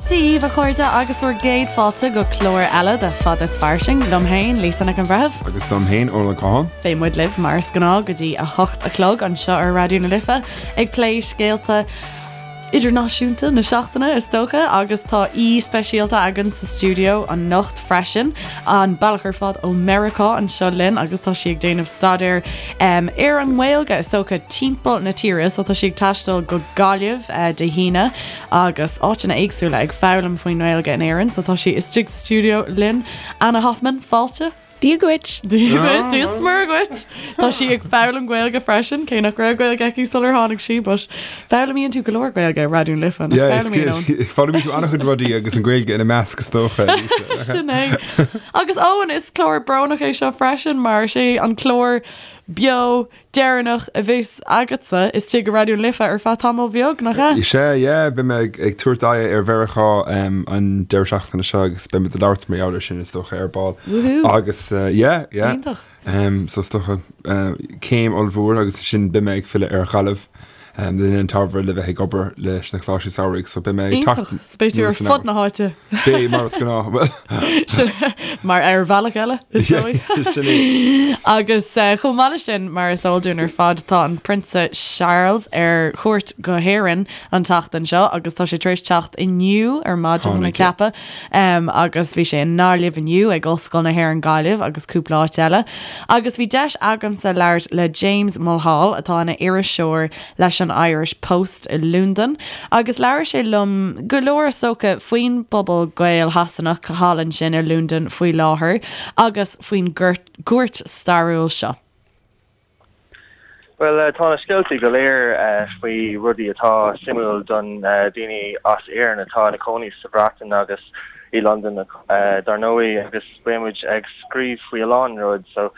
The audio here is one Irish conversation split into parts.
Dia daoibh, a chairde, agus bhur gcéad fáilte go clár eile de Fada is Fairsing, liom féin, Lisa Nic an Bhreithimh. Agus liom féin, Eoin Ó Catháin. Beidh muid libh, mar is gnáth, go dtí 8 a chlog anseo ar Raidió na Life, ag plé scéalta idirnáisiúnta na seachtaine, is dócha, agus tá aoi speisialta againn sa stiúideo anocht freisin, an bealach ar fad ó Meiriceá anseo linn agus tá sí ag déanamh staidéir ar an nGaeilge, is dócha, timpeall na tíre, so tá sí ag taisteal go Gaillimh Dé hAoine agus áiteanna éagsúla ag foghlaim faoin nGaeilge in Éirinn, so tá sí istigh sa stiúideo linn. Anna Hoffman, fáilte! Dia dhuit! Dia dhuit, Dia is Muire dhuit! Tá sí ag foghlaim Gaeilge freisin, cé nach raibh Gaeilge aici sular tháinig sí, but foghlaimíonn tú go leor Gaeilge ar Raidió na Life, nach bhfoghlaimíonn, Eoin? Foghlaimíonn tú an-chuid rudaí agus an Ghaeilge ina measc is dócha. Sin é. Agus Eoin, is clár brónach é seo freisin mar is é an clár beo deireanach a bheas agatsa istigh i Raidió na Life ar feadh tamaill bheag, nach ea? Sea, yeah, beidh mé ag tabhairt aghaidh ar Mheiriceá an deireadh seachtaine seo agus beidh muid ag labhairt mar gheall air sin is dócha ar ball. Woohoo! Agus yeah, yeah. Iontach. So is dócha céim ollmhór agus ansin beidh mé ag filleadh ar Ghaillimh le linn an tsamhraidh le bheith ag obair leis na Coláistí Samhraidh so beidh mé ag teacht Iontach. So beidh tú ar fud na háite. Beidh, mar is gnáth. Bhuel. Mar ar bhealach eile, is dóigh. Sin é. Agus chomh maith leis sin, mar is eol dúinn ar fad, tá an Prionsa Charles ar chuairt go hÉirinn an tseachtain seo agus tá sé tar éis teacht inniu ar maidin, tá mé ag ceapadh, agus bhí sé i nGaillimh inniu ag Ollscoil na hÉireann Gaillimh agus cúpla áit eile. Agus bhí deis agamsa labhairt le James Mulhall, atá ina iriseoir leis an Irish Post i Londain, agus labhair sé liom go leor is dócha faoin bpobal Gael-Shasanach thall ansin i Londain faoi láthair agus faoin gcuairt stairiúil seo. Bhuel, tá na scéaltaí go léir faoi rudaí atá suimiúil don daoine as Éirinn atá ina cónaí sa Bhreatain agus i Londain dar ndóigh agus beidh muid ag scríobh faoi a lán rud so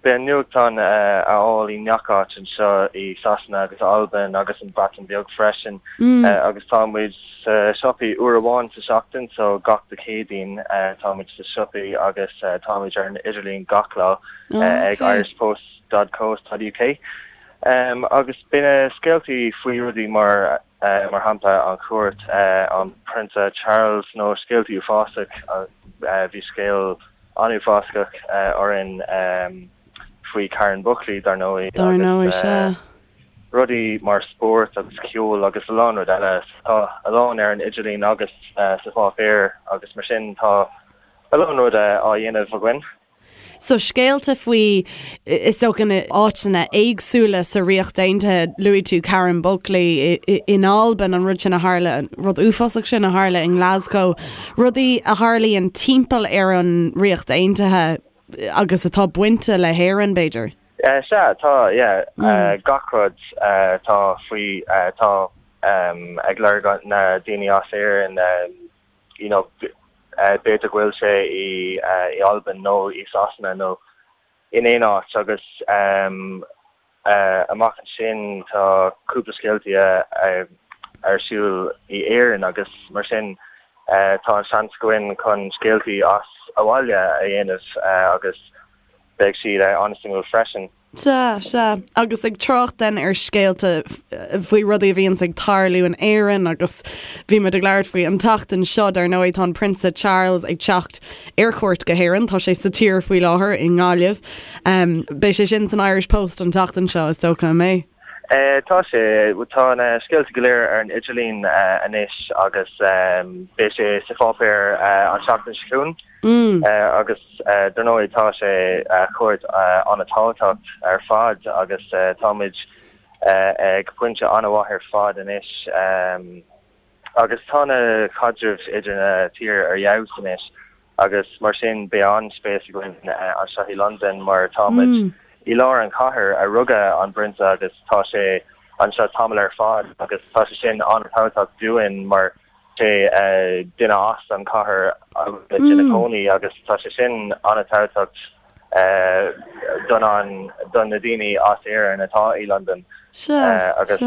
beidh an nuachtán a fháil i ngach áit anseo i Sasana agus Albain agus an Bhreatain Bheag freisin agus tá muid sa siopaí uair amháin sa seachtain so gach Dé Céadaoin tá muid sa siopaí agus tá muid ar an idirlíon gach lá ag irishpost dot co dot uk agus beidh na scéaltaí faoi rudaí mar mar shampla an chuairt an Prionsa Charles nó scéaltaí uafásach bhí scéal an-uafásach orainn faoi Karen Buckley dar ndóigh Dar ndóigh, agus sea. rudaí mar spórt agus ceol agus a lán rud eile. Tá a lán ar an idirlíon agus sa pháipéar agus mar sin tá a lán rud á dhéanamh againn. So scéalta faoi, is dócha, na áiteanna éagsúla sa Ríocht Aontaithe, luaigh tú Karen Buckley in Albain, an rud sin a tharla, an rud uafásach sin a tharla i nGlasgow, rudaí a tharlaíonn timpeall ar an Ríocht Aontaithe agus atá bainte le hÉirinn, b'fhéidir. Sea, tá, yeah, gach rud atá faoi, atá ag lorg na daoine as Éirinn, you know, b'fhéidir go bhfuil sé i Albain nó i Sasana nó in aon áit agus amach ansin tá cúpla scéaltaí ar siúl i Éirinn agus mar sin tá an seans againn chun scéaltaí as abhaile a dhéanamh agus beidh siad an-suimiúil freisin. Sea, sea. Agus ag trácht then ar scéalta faoi rudaí a bhíonns ag tarlú in Éirinn agus bhí muid ag labhairt faoi an tseachtain seo, dar ndóigh, tá an Prionsa Charles ag teacht ar chuairt go hÉirinn, tá sé sa tír faoi láthair i nGaillimh. Beidh sé sin san Irish Post an tseachtain seo, is dócha, an mbeidh? Tá sé. Tá na scéalta go léir ar an idirlíon anois agus beidh sé sa pháipéar an tseachtain seo chugainn. Agus dar ndóigh tá sé cuairt an-tábhachtach ar fad agus táimid ag pointe an-mhaith ar fad anois agus tá na caidrimh idir na tír ar fheabhas anois agus mar sin beidh an-spéis againn anseo i Londain mar táimid i lár an chathair a rugadh an Prionsa agus tá sé anseo tamall ar fad agus tá sé sin an-tábhachtach dúinn mar sé duine as an chathair agus ina cónaí agus tá sé sin an-tábhachtach don an don na daoine as Éirinn atá i Londain agus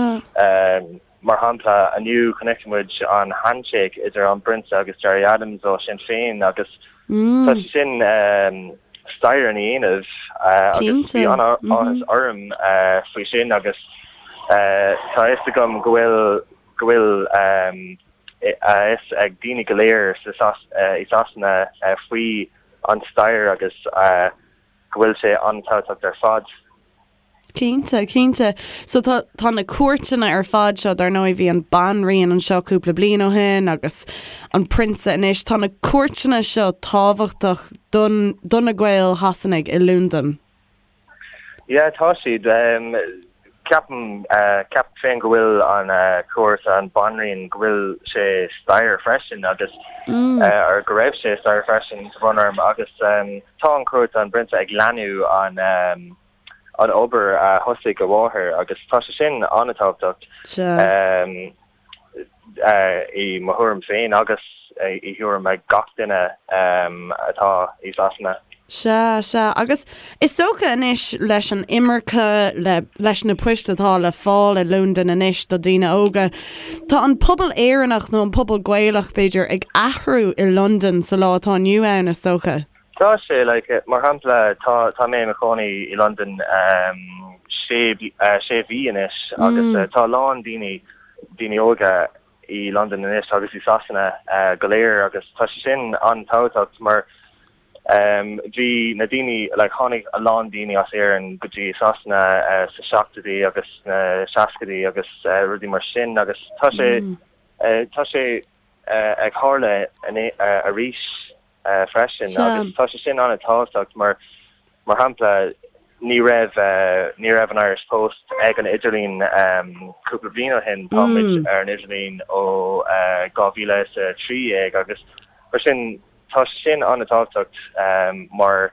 mar shampla inniu chonaic muid an handshake idir an bPrionsa agus Gerry Adams ó Sinn Féin agus tá sé sin stair ina dhéanamh agus bhí an-áthas orm faoi sin agus tá a fhios agam go bhfuil go bhfuil. a fhios ag daoine go léir i Sasana faoi an stair agus go bhfuil sé an-tábhachtach ar fad. Cinnte, cinnte. So tá, tá na cuairteanna ar fad seo, dar ndóigh bhí an Banríon anseo cúpla bliain ó shin agus an Prionsa anois, tá na cuairteanna seo tábhachtach don, do na Gaeil Shasanaigh i Londain. Yeah, tá siad. Ceapaim, ceapaim féin go bhfuil an cuairt an Banríon, go bhfuil sé stair freisin agus, or go raibh sé stair freisin tá brón orm agus tá an cuairt an bPrionsa ag leanú an, an obair a thosaigh a mháthair agus tá sé sin an-tábhachtach i mo thuairim féin agus i thuairim ag gach duine atá i Sasana. Sea, sea. Agus is dócha anois leis an imirce, le, leis na poist atá le fáil i Londain anois do daoine óga, tá an pobal Éireannach nó an pobal Gaelach, b'fhéidir, ag athrú i Londain sa lá atá inniu ann, is dócha. Tá sé, like, mar shampla, tá, tá mé i mo chónaí i Londain sé, sé mhí anois agus tá a lán daoine, daoine óga i Londain anois agus i Sasana go léir agus tá sé sin an-tábhachtach mar bhí na daoine, like, tháinig a lán daoine as Éirinn go dtí Sasana sa seachtóidí agus sna seascaidí agus rudaí mar sin agus tá sé, tá sé ag tharla arís. freisin agus tá sé sin an-tábhachtach mar mar shampla ní raibh ní raibh an Irish Post ag an idirlíon cúpla bliain ó shin, tá muid ar an idirlíon ó 2013 agus mar sin tá sé sin an-tábhachtach mar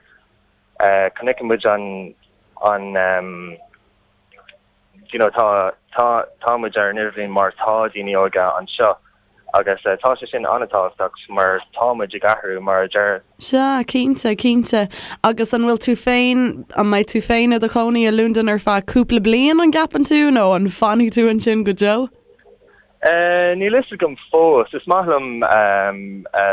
chonaic muid an an you know tá tá tá muid ar an idirlíon mar tá daoine óga anseo agus tá sé sin an-tábhachtach mar tá muid ag athrú mar a deir. Sea, cinnte, cinnte. Agus an bhfuil tú féin, an mbeidh tú féin i do chónaí i Londain ar feadh cúpla bliain, an gceapann tú, nó an bhfanfaidh tú ansin go deo? Níl fhios agam fós. Is maith liom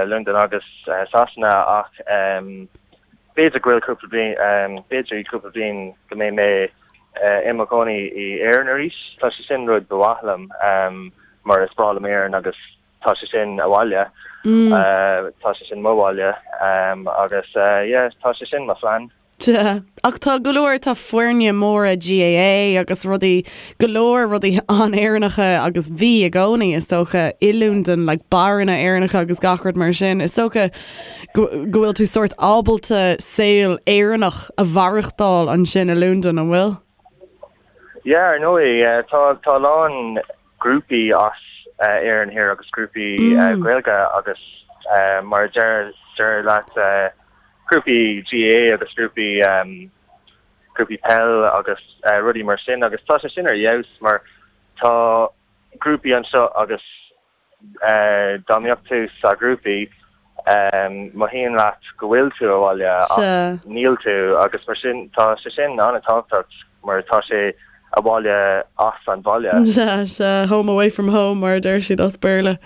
Londain agus Sasana ach b'fhéidir go bhfuil cúpla bliain, b'fhéidir i cúpla bliain go mbeidh mé i mo chónaí i Éirinn arís. Tá sé sin rud ba mhaith liom mar is breá liom Éirinn agus tá sé sin abhaile. Tá sé sin mo bhaile agus yeah tá sé sin mo phlean. Sea. Ach tá go leor, tá foirne móra GAA agus rudaí, go leor rudaí an-Éireannacha agus bhí i gcónaí is dócha i Londain, like beáranna Éireannacha agus gach rud mar sin. Is dócha go bhfuil tú sórt ábalta saol Éireannach a mhaireachtáil ansin i Londain, an bhfuil? Yeah, ar ndóigh, tá tá a lán grúpaí as Éirinn thiar agus grúpaí Gaeilge agus mar a deir deir leat grúpaí GAA agus grúpaí grúpaí peil agus rudaí mar sin agus tá sé sin ar fheabhas mar tá grúpaí anseo agus Dá mbeadh tú sa ghrúpaí, mothaíonn leat go bhfuil tú abhaile ach níl tú agus mar sin tá sé sin an-tábhachtach mar tá sé abhaile as an bhaile. Sea, sea, home away from home mar a deir siad as Béarla.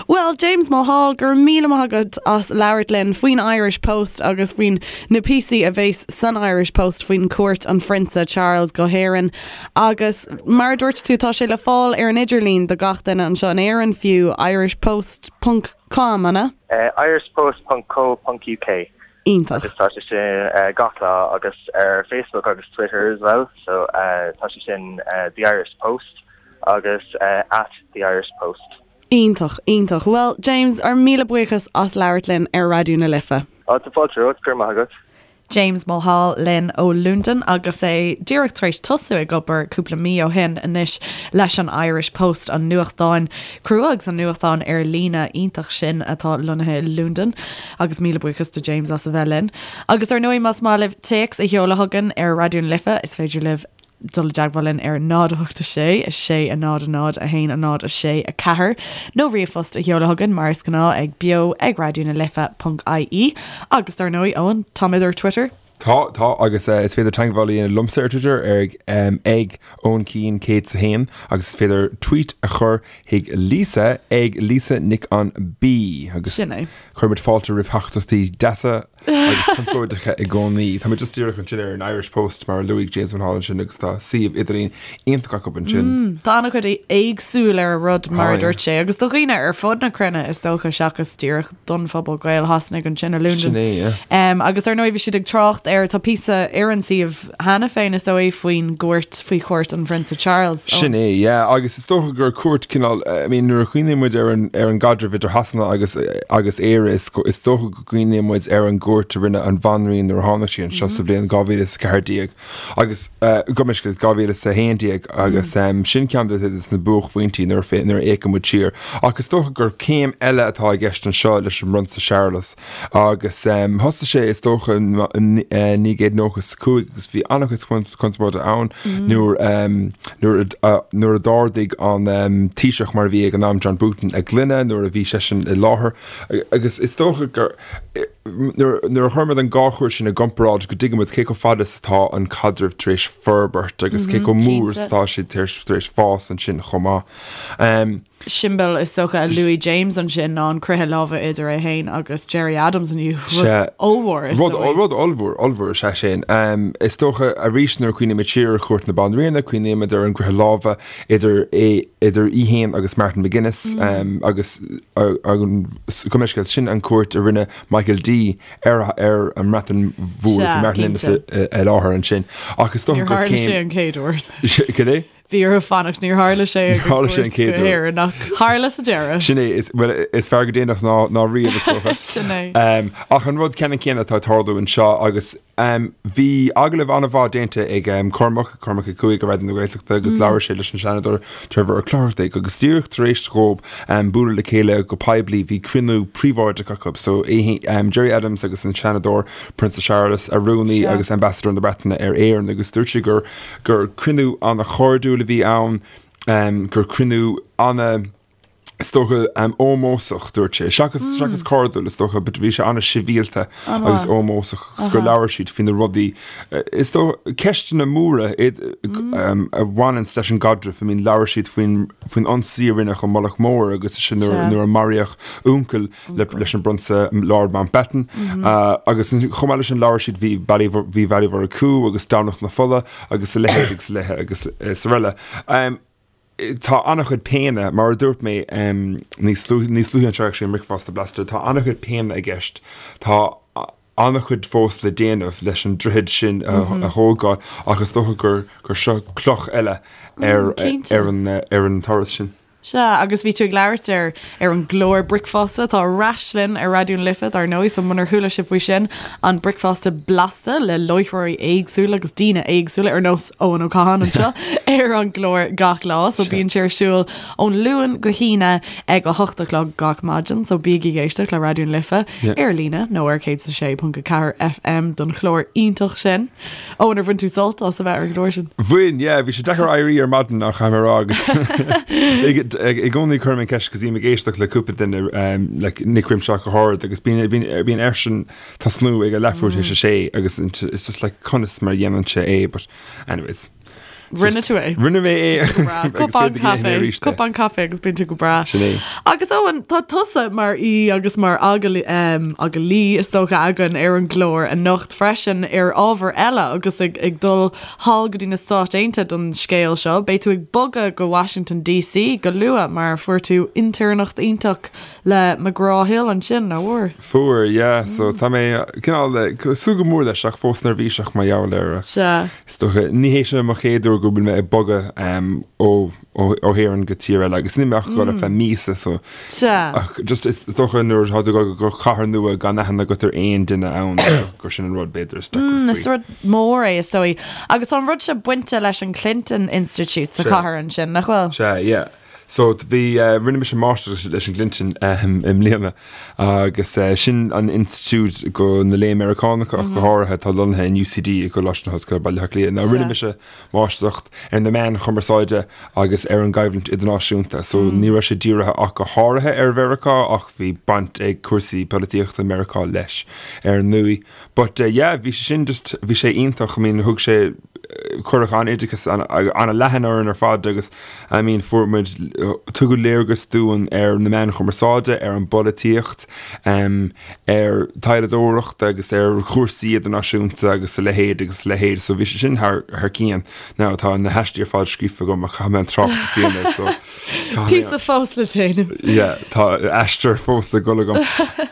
Bhuel, James Mulhall, go raibh míle maith agat as labhairt linn faoin Irish Post agus faoin na píosaí a bheas san Irish Post faoin cuairt an Phrionsa Charles go hÉirinn. Agus mar a dúirt tú, tá sé le fáil ar an idirlíon do gach duine anseo in Éirinn fiú, irishpost ponc com, an ea? Irishpost ponc co ponc uk. Iontach. Agus tá sé sin gach lá agus ar Facebook agus Twitter as well, so tá sé sin The Irish Post agus at The Irish Post. Iontach, iontach. Bhuel, James, ár míle buíochas as labhairt linn ar Raidió na Life. Á, tá fáilte romhat, go raibh maith agat. James Mulhall linn ó Londain agus é díreach tar éis tosú ag obair cúpla mí ó shin anois leis an Irish Post, an nuachtán crua agus an nuachtán ar líne iontach sin atá lonnaithe i Londain. Agus míle buíochas do James as a bheith linn. Agus ar ndóigh más maith libh téacs a sheoladh chugainn ar Raidió na Life is féidir libh dul i dteagmháil linn ar 0 8 6 6 0 0 1 0 6 4 nó ríomhphost a sheoladh chugainn mar is gnáth ag beo ag raidió na life ponc ie agus dar ndóigh Eoin táimid ar Twitter. Tá, tá, agus is féidir teagmháil a dhéanamh liomsa ar Twitter ar ag Eoin Keane 101 agus is féidir tweet a chur chuig Lisa ag Lisa Nic an B agus Sin é. cuirimid fáilte roimh theachtaireachtaí deasa agus conspóideacha i gcónaí. Tá mé just díreach ansin ar an Irish Post mar a luaigh James Mulholland ansin agus tá suíomh idirlín iontach acu ansin. Tá an-chuid éagsúil ar an rud mar a dúirt sé agus do dhaoine ar fud na cruinne is dócha seachas díreach don phobal Gael-Shasanaigh ansin i Londain. Sin é, yeah. Agus ar ndóigh bhí siad ag trácht ar, tá píosa ar an suíomh cheana féin is dóigh faoin gcuairt, faoi chuairt an Phrionsa Charles. Sin é, yeah. Agus is dócha gur cuairt cineál, I mean nuair a chuimhníonn muid ar an, ar an gcaidreamh idir Shasana agus, agus Éire is, is dócha go gcuimhníonn muid ar an gcuairt a rinne an Bhanríon nuair a tháinig sí anseo sa bhliain 2014. Agus gabh mo leithscéal 2011 agus sin ceann de na buaicphointí nuair a nuair a fhéachann muid siar. Ach is dócha gur céim eile atá i gceist anseo leis an bPrionsa Séarlas agus thosaigh sé is dócha in 1995 agus bhí an-chuid conspóide ann nuair nuair nuair a d'ardaigh an Taoiseach mar a bhí ag an am John Bruton a ghloine nuair a bhí seisean i láthair agus is dócha gur Nuair a chuirimid an dhá chuairt sin i gcomparáid go dtuigimid cé chomh fada is atá an caidreamh tar éis forbairt agus cé chomh mór is atá sé tar éis fás ansin chomh maith. Siombail is dócha a luaigh James ansin ná an croitheadh láimhe idir é féin agus Gerry Adams inniu. Rud ollmhór is dóigh. Rud ollmhór, ollmhór is ea sin. Is dócha arís nuair a chuimhnímid siar ar chuairt na Banríona, cuimhnímid ar an gcroitheadh láimhe idir é, idir í féin agus Martin McGuinness agus gabh mo leithscéal, sin an cuairt a rinne Michael D ar ar an mBreatain Mhór, bhí Martin McGuinness i láthair ansin. Ach is dócha gur céim. Níor tharla sé an chéad uair. Cad é? Bhí orthu fanacht, níor tharla sé ag an gcuairt go hÉirinn ach tharla sa deireadh. Sin é, is, well, is fearr go déanach ná, ná riamh is dócha. Sin é. Ach an rud ceannann céanna atá ag tarlú anseo agus Bhí agallamh an-mhaith déanta ag Cormac, Cormac 5 ar Raidió na Gaeltachta agus labhair sé leis an Seanadóir Trevor Ó Clochartaigh agus díreach tar éis dhóibh bualadh le chéile go poiblí bhí cruinniú príobháideach acu. So Gerry Adams agus an Seanadóir Prionsa Séarlas, a rúnaí agus Ambassador na Breataine ar Éirinn agus dúirt sé gur gur cruinniú an-chairdiúil a bhí ann, gur cruinniú ana is dócha, ómósach, dúirt sé. Seachas, seachas cairdiúil, is dócha, but bhí sé an-sibhialta agus ómósach agus gur labhair siad faoi na rudaí, is dócha, ceisteanna móra a bhaineanns leis an gcaidreamh. I mean, labhair siad faoin, faoin ionsaí a rinneadh i Mullach Mór agus sin nuair, nuair a maraíodh uncail le, leis an bPrionsa Lord Mountbatten. Agus chomh maith leis sin labhair siad, bhí Baile, bhí Baile Mhurchú agus Domhnach na Fola agus a leithéid agus a leithéid agus is araile. Tá an-chuid péine, mar a dúirt mé níos níos luaithe anseo actually i mBricfeasta Blasta, tá an-chuid péine i gceist. Tá an-chuid fós le déanamh leis an droichead sin a thógáil ach is dócha gur gur seo cloch eile ar ar an ar an turas sin. Sea, agus bhí tú ag labhairt ar ar an gclár Bricfeasta atá ar ais linn ar Raidió na Life, dar ndóigh, so munar chuala sibh faoi sin, an Bricfeasta Blasta le láithreoirí éagsúla agus daoine éagsúla ar nós Eoin Ó Catháin anseo ar an gclár gach lá, so bíonn sé ar siúl ón Luan go hAoine ag 8 a chlog gach maidin, so bígí ag éisteacht le Raidió na Life ar líne nó ar 106.4 FM don chlár iontach sin. Eoin, ar bhain tú sult as a bheith ar an gclár sin? Bhain, yeah, bhí sé deacair éirí ar maidin ach caithfidh mé a rá agus i gcónaí cuirim an ceist cos bím ag éisteacht le cúpla duine like Nic Rimshaw go háirid agus bíonn bíonn airsean tosnú ag a leathuair tar éis a sé agus it's just like conas mar a dhéanann sé é but anyways. Rinne tú é. Rinne mé é. Cupán caife, cupán caife agus bíonn tú go breá. Sin é. Agus Eoin, tá tusa mar aoi agus mar agallaí is dócha againn ar an gclár anocht freisin ar ábhar eile agus ag, ag dul thall go dtí na Stáit Aontaithe don scéal seo. Beidh tú ag bogadh go Washington DC go luath mar fuair tú intéirneacht iontach Le McGraw Hill ansin, nach bhfuair? Fuair, yeah. So tá mé cineál ag súil go mór leis ach fós neirbhíseach mar gheall air. Sea. Is dócha, ní hé seo mo chéad uair go bhfuil mé ag bogadh ó ó hÉirinn go tír eile agus níl mé ach ag dul ar feadh míosa so. Sea. Ach just is dócha nuair atá tú ag dul go cathair nua gan aithne agat ar aon duine ann gur sin an rud b'fhéidir is deacra faoi. Is rud mór é is dóigh. Agus tá an rud seo bainte leis an Clinton Institute sa chathair ansin, nach bhfuil? Sea, yeah. So bhí, rinne mise máistreacht leis an gClinton i mbliana agus sin an institiúid do na léinn Meiriceánacha ach go háirithe atá lonnaithe in UCD i gColáiste na hOllscoile Baile Átha Cliath. Now rinne mise máistreacht ar na meáin chumarsáide agus ar an gcoimhlint idirnáisiúnta so ní raibh sé dírithe ach go háirithe ar Mheiriceá ach bhí baint ag cúrsaí polaitíochta Meiriceá leis ar ndóigh. But yeah, bhí sé sin just, bhí sé iontach, I mean thug sé, cuireadh an-oideachas an-leathan orainn ar fad agus I mean fuair muid, tugadh léargas dúinn ar na meáin chumarsáide, ar an bpolaitíocht, ar taidhleadóireacht agus ar chúrsaí idirnáisiúnta agus a leithéid agus a leithéid so bhí sé sin thar, thar cionn. Now tá na haistí ar fad scríofa agam ach caithfidh mé an tráchtas a dhéanamh so Píosa fós le déanamh. Yeah, tá aistear fós le dul agam.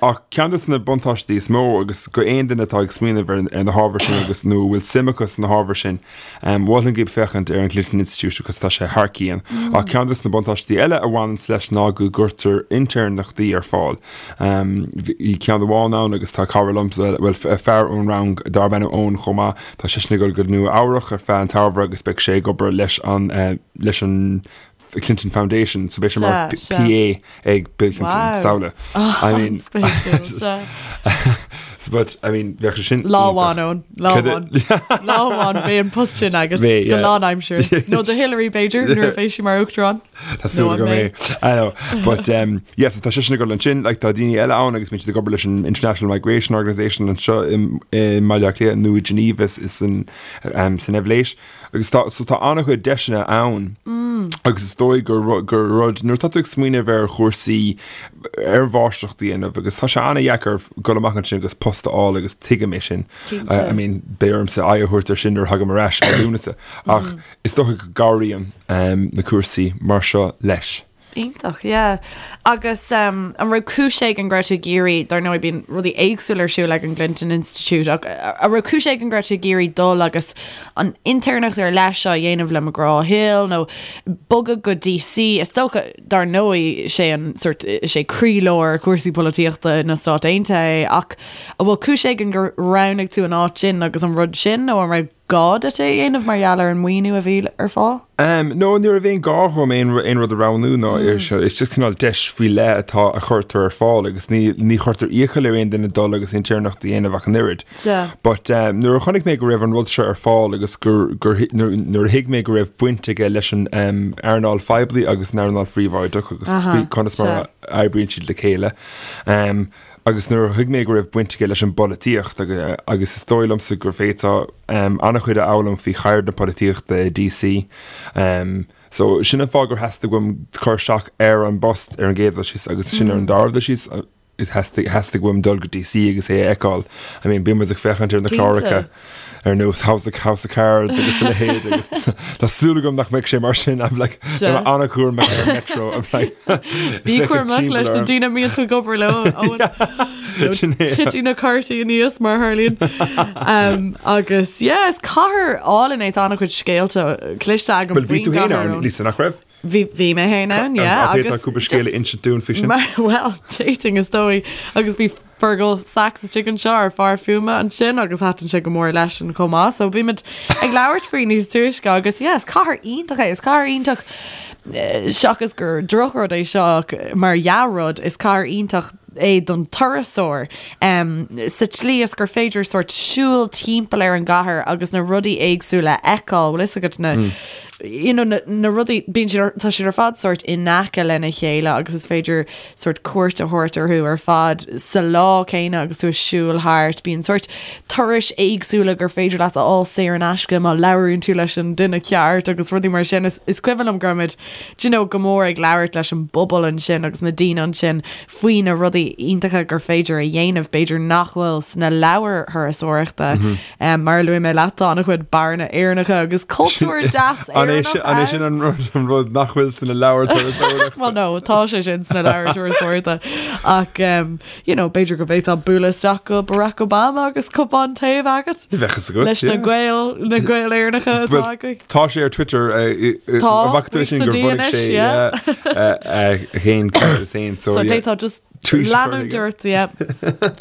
Ach ceann de na buntáistí is mó agus go aon duine atá ag smaoineamh ar ar na hábhair sin agus nó a bhfuil suim acu sna hábhair sin, mholfainn daoibh féachaint ar an Clinton Institute agus tá sé thar cionn. Ach ceann de na buntáistí eile a bhaineanns leis ná go gcuirtear intéirneachtaí ar fáil. Bhí ceann amháin ann agus tá cara liomsa, bhuel fear ón rang darb ainm Eoin chomh maith, tá seisean ag dul go Nua Eabhrach ar feadh an tsamhraidh agus beidh sé ag obair leis an leis an Clinton Foundation, so beidh sé mar PA ag Bill Clinton, samhlaigh. I mean, An-spéisiúil, so but, I mean, bheadh sé sin Lá amháin, Eoin, lá amháin. Lá amháin beidh an post sin agat go lánaimseartha. Nó do Hillary b'fhéidir, nuair a bheidh sí mar uachtarán. Tá súil agam é. I know. But, um, yeah, so tá seisean ag dul ansin, like, tá daoine eile ann agus bíonn siad ag obair leis an International Migration Organisation anseo i mBaile Átha Cliath nó i Geneva is san, um, san Eibhléis. Agus tá, so tá an-chuid deiseanna ann agus is dóigh gur, gur rud, nuair atá tú ag smaoineamh ar chúrsaí, ar mháistreacht a dhéanamh agus tá sé an-dheacair dul amach ansin agus post a fháil agus tuigim é sin. I mean, beidh ormsa aghaidh a thabhairt ar sin nuair a thagaim ar ais i Lúnasa. Ach is dócha go gcabhraíonn na cúrsaí mar seo leis. Iontach, yeah. Agus um, an raibh cúis éigin go raibh tú ag iarraidh, dar ndóigh bíonn rudaí éagsúla ar siúl ag an gClinton Institute, ach an raibh cúis éigin go raibh tú ag iarraidh dul agus an intéirneacht ar leith seo a dhéanamh le McGraw Hill nó bogadh go DC, is dócha, dar ndóigh, sé an sort, sé croílár cúrsaí polaitíochta na Stát Aontaithe é, ach an bhfuil cúis éigin gur roghnaigh tú an áit sin agus an rud sin nó an raibh gá duit é a dhéanamh mar gheall ar an maoiniú a bhí ar fáil? No, ní raibh aon gá dhom aon aon rud a roghnú ná ar seo. Is just cineál deis faoi leith atá a chuirtear ar fáil agus ní ní chuirtear iachall ar aon duine dul agus intéirneacht a dhéanamh ach an oiread. Sea. But nuair a chonaic mé go raibh an rud seo ar fáil agus gur gur nuair nuair a thuig mé go raibh baint aige leis an earnáil phoiblí agus an earnáil phríobháideach agus faoi conas mar a oibríonn siad le chéile, Agus nuair a thuig mé go raibh baint aige leis an bpolaitíocht, agus is dóigh liomsa go bhféadfá an-chuid a fhoghlaim faoi cheird na polaitíochta i DC. So sin an fáth gur theastaigh uaim cur isteach ar an bpost ar an gcéad dul síos agus sin ar an dara dul síos, theastaigh theastaigh uaim dul go DC agus é a fheiceáil. I mean, bíonn muid ag féachaint ar na cláracha. ar nós House of House of Cards agus a leithéid agus tá súil agam nach mbeidh sé mar sin I'm like Sea. an-chúramach ar an metro I'm like Bí cúramach leis na daoine a mbíonn tú ag obair leo Owen. Nó Sin é. Titfidh na cártaí aníos mar a tharlaíonn. Um, agus yeah, is cathair álainn é tá an-chuid scéalta cloiste agam Well bhí tú féin ann Lisa nach raibh? Bhí bhí mé féin ann, yeah, An bhféadfá cúpla scéal a insint dúinn faoi sin? Mar, well, dating is dóigh agus bhí Fergal Sachs istigh anseo ár bhfear fuaime ansin agus thaitin sé go mór leisean chomh maith. So bhí muid ag labhairt faoi níos túisce agus yeah, is cathair iontach é, is cathair iontach eh, seachas gur drochrud é seo ach mar dhea-rud, is cathair iontach é don turasóir um, sa tslí is gur féidir sort siúl timpeall ar an gcathair agus na rudaí éagsúla a fheiceáil, bhfuil fhios agat na mm. you know, na, na rudaí, bíonn siad ar, tá siad ar fad sort in aice lena chéile agus is féidir sort cuairt a thabhairt orthu ar fad sa lá céanna agus tú ag siúl thart. Bíonn sort turais éagsúla gur féidir leat a fháil saor in aisce má labhraíonn tú leis an duine ceart agus rudaí mar sin. Is, is cuimhin liom go raibh muid, do you know, go mór ag labhairt leis an bpobal ansin agus na daoine ansin faoi na rudaí iontacha gur féidir a dhéanamh, b'fhéidir nach bhfuil sna leabhair thurasóireachta. Mm -hmm. Mar a luaigh mé leat, tá an-chuid beáranna Éireannacha agus cultúr deas Éireannach ann. An é sin an rud, an rud nach bhfuil sna leabhair turasóireachta? Well no, tá sé sin sna leabhair turasóireachta. Ach, um, you know, b'fhéidir go bhféadfá bualadh isteach go Barack Obama agus cupán tae a bheith agat. Bheadh fhios agat, Leis na Gaeil, na Gaeil Éireannacha atá Well, agaibh. tá sé ar Twitter, Tá, an bhfaca tú é sin sa gur D bhunaigh anois, sé, yeah. yeah, a fhéin cuntas féin, so So yeah. d'fhéadfá just Tweet a chur leanúint chuige. ort, yeah.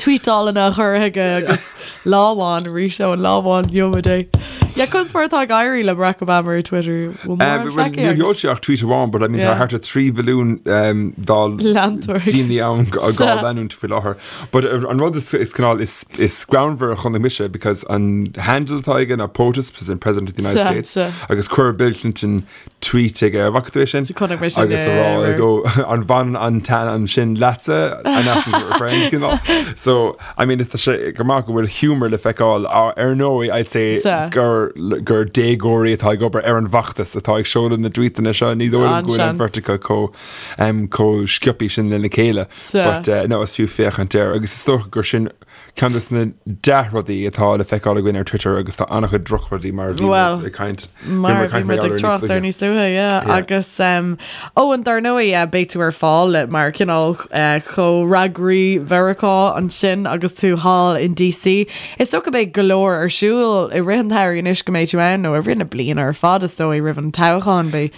Tweetálanna a chur chuige agus lá amháin arís ó an lá amháin gheobhaidh é. Yeah, conas mar atá ag éirí le Barack Obama ar Twitter? Bhfuil mórán Well, feicthe níor agat? sheol sé ach tweet amháin, but I mean, tá Yeah. thart ar 3 mhilliún um, dá Leantóir. daoine ann á Sea. leanúint faoi láthair. But uh, an rud is, is cineál is, is greannmhar a chonaic mise because an handle atá aige ná POTUS, President President of the United Sea, States, sea. agus chuir Bill Clinton tweet aige ar bhfaca tú é sin? Chonaic mé sin, Agus a yeah, rá yeah, like, oh, an bhaineann an t-ainm sin leatsa an asking for a friend cineál. So I mean tá sé go maith go bhfuil humour le feiceáil ar ar ndóigh I'd say Sea. gur gur déagóirí atá ag obair ar an bhfeachtas atá ag seoladh na dtweetanna seo ní dóigh liom go bhfuil an An-seans. bheirt acu chomh um, chomh sciobtha sin lena chéile. Sea. But uh, no, is fiú féachaint air agus is dócha gur sin Ceann de na dea-rudaí atá le feiceáil againn ar Twitter agus tá an-chuid drochrudaí mar a bhí Well, muid ag caint. Mar a bhí muid ag trácht ar níos luaithe, yeah. Yeah. Agus um, ó an dar ndóigh yeah, beidh tú ar fáil le mar cineál uh, comhfhreagraí Mheiriceá ansin agus tú thall in DC. Is dócha beidh go leor ar siúl i rith an tsamhraidh anois go mbeidh tú ann nó i rith na bliana ar fad is dóigh roimh an toghchán beidh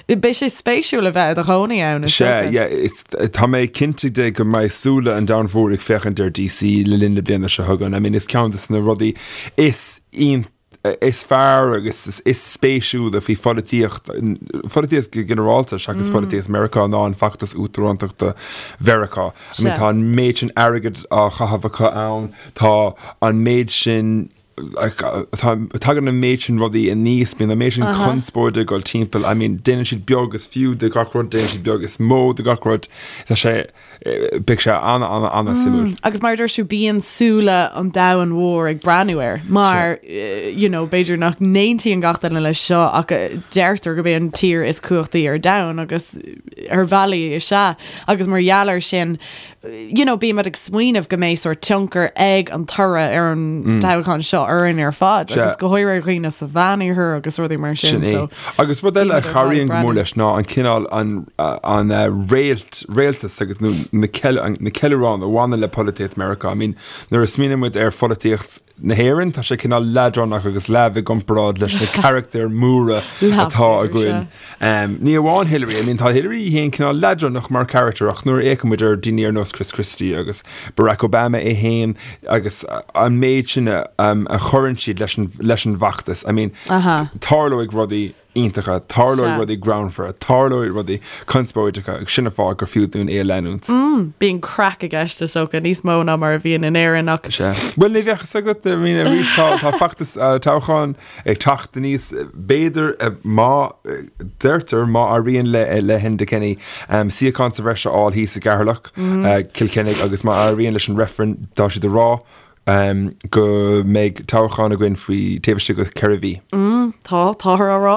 Beidh sé spéisiúil a bheith i do chónaí ann, is Sea, dócha. yeah, is, tá mé cinnte de go mbeidh súile an domhain mhóir ag féachaint ar DC le linn na bliana seo chugainn. I mean, is ceann de na rudaí is is fearr agus is, is spéisiúla faoi pholaitíocht, pholaitíocht go ginearálta seachas polaitíocht Meiriceá ná an feachtas uachtarántachta Mheiriceá. I mean, Sea. tá an méid sin airgid á chaitheamh acu ann, tá an méid sin Tagann an méid sin rudaí aníos, bíonn an méid sin conspóide ag dul timpeall, I mean, déanann siad beag is fiú de gach rud, déanann siad beag is mó de gach rud, tá sé, beidh sé ana, ana, ana suimiúil. Agus mar a dúirt tú, bíonn súile an domhain mhóir ag breathnú air, mar, you know, b'fhéidir nach n-aontaíonn gach duine leis seo ach deirtear gurb é an tír is cumhachtaí ar domhan agus ar bhealaí is ea. Agus mar gheall air sin, you know, bímid ag smaoineamh go mbeidh sórt tionchar ag an toradh ar an toghchán seo orainn ar fad agus go háirithe ar dhaoine sa Mheánoirthear agus rudaí mar sin. Sin é. So, Agus rud eile a bímid ar fad ag chabhraíonn go mór breathnú. leis ná an cineál an an réalt réaltas agus nó na ceil na ceiliúráin a bhaineann le polaitíocht Meiriceá. I mean, nuair a smaoiníonn muid ar pholaitíocht na hÉireann, tá sé cineál leadránach agus leamh i gcomparáid leis na carachtair mhóra Leamh, atá b'fhéidir, againn. Ní amháin Hillary, I mean tá Hillary í féin cineál leadránach mar charachtar ach nuair a fhéachann muid ar daoine ar nós Chris Christie agus Barack Obama é féin agus an méid sin a chuireann siad leis an leis an bhfeachtas, I mean tarlóidh rudaí iontacha, tarlóidh rudaí greannmhara, tarlóidh rudaí conspóideacha agus sin an fáth gur fiú dúinn é a leanúint. Bíonn craic i gceist is dócha, níos mó ná mar a bhíonn in Éirinn ach. Sea. Bhuel, ní bheadh fhios agat, I mean, arís tá tá feachtas toghcháin ag teacht aníos, b'fhéidir, má, deirtear, má éiríonn le le hEnda Kenny suíochán sa bhreis a fháil thíos i gCeatharlach, Cill Chainnigh agus má éiríonn leis an reifreann, tá siad ag rá go mbeidh toghchán againn faoi taobh istigh de cheithre mhí. Tá, táthar á rá.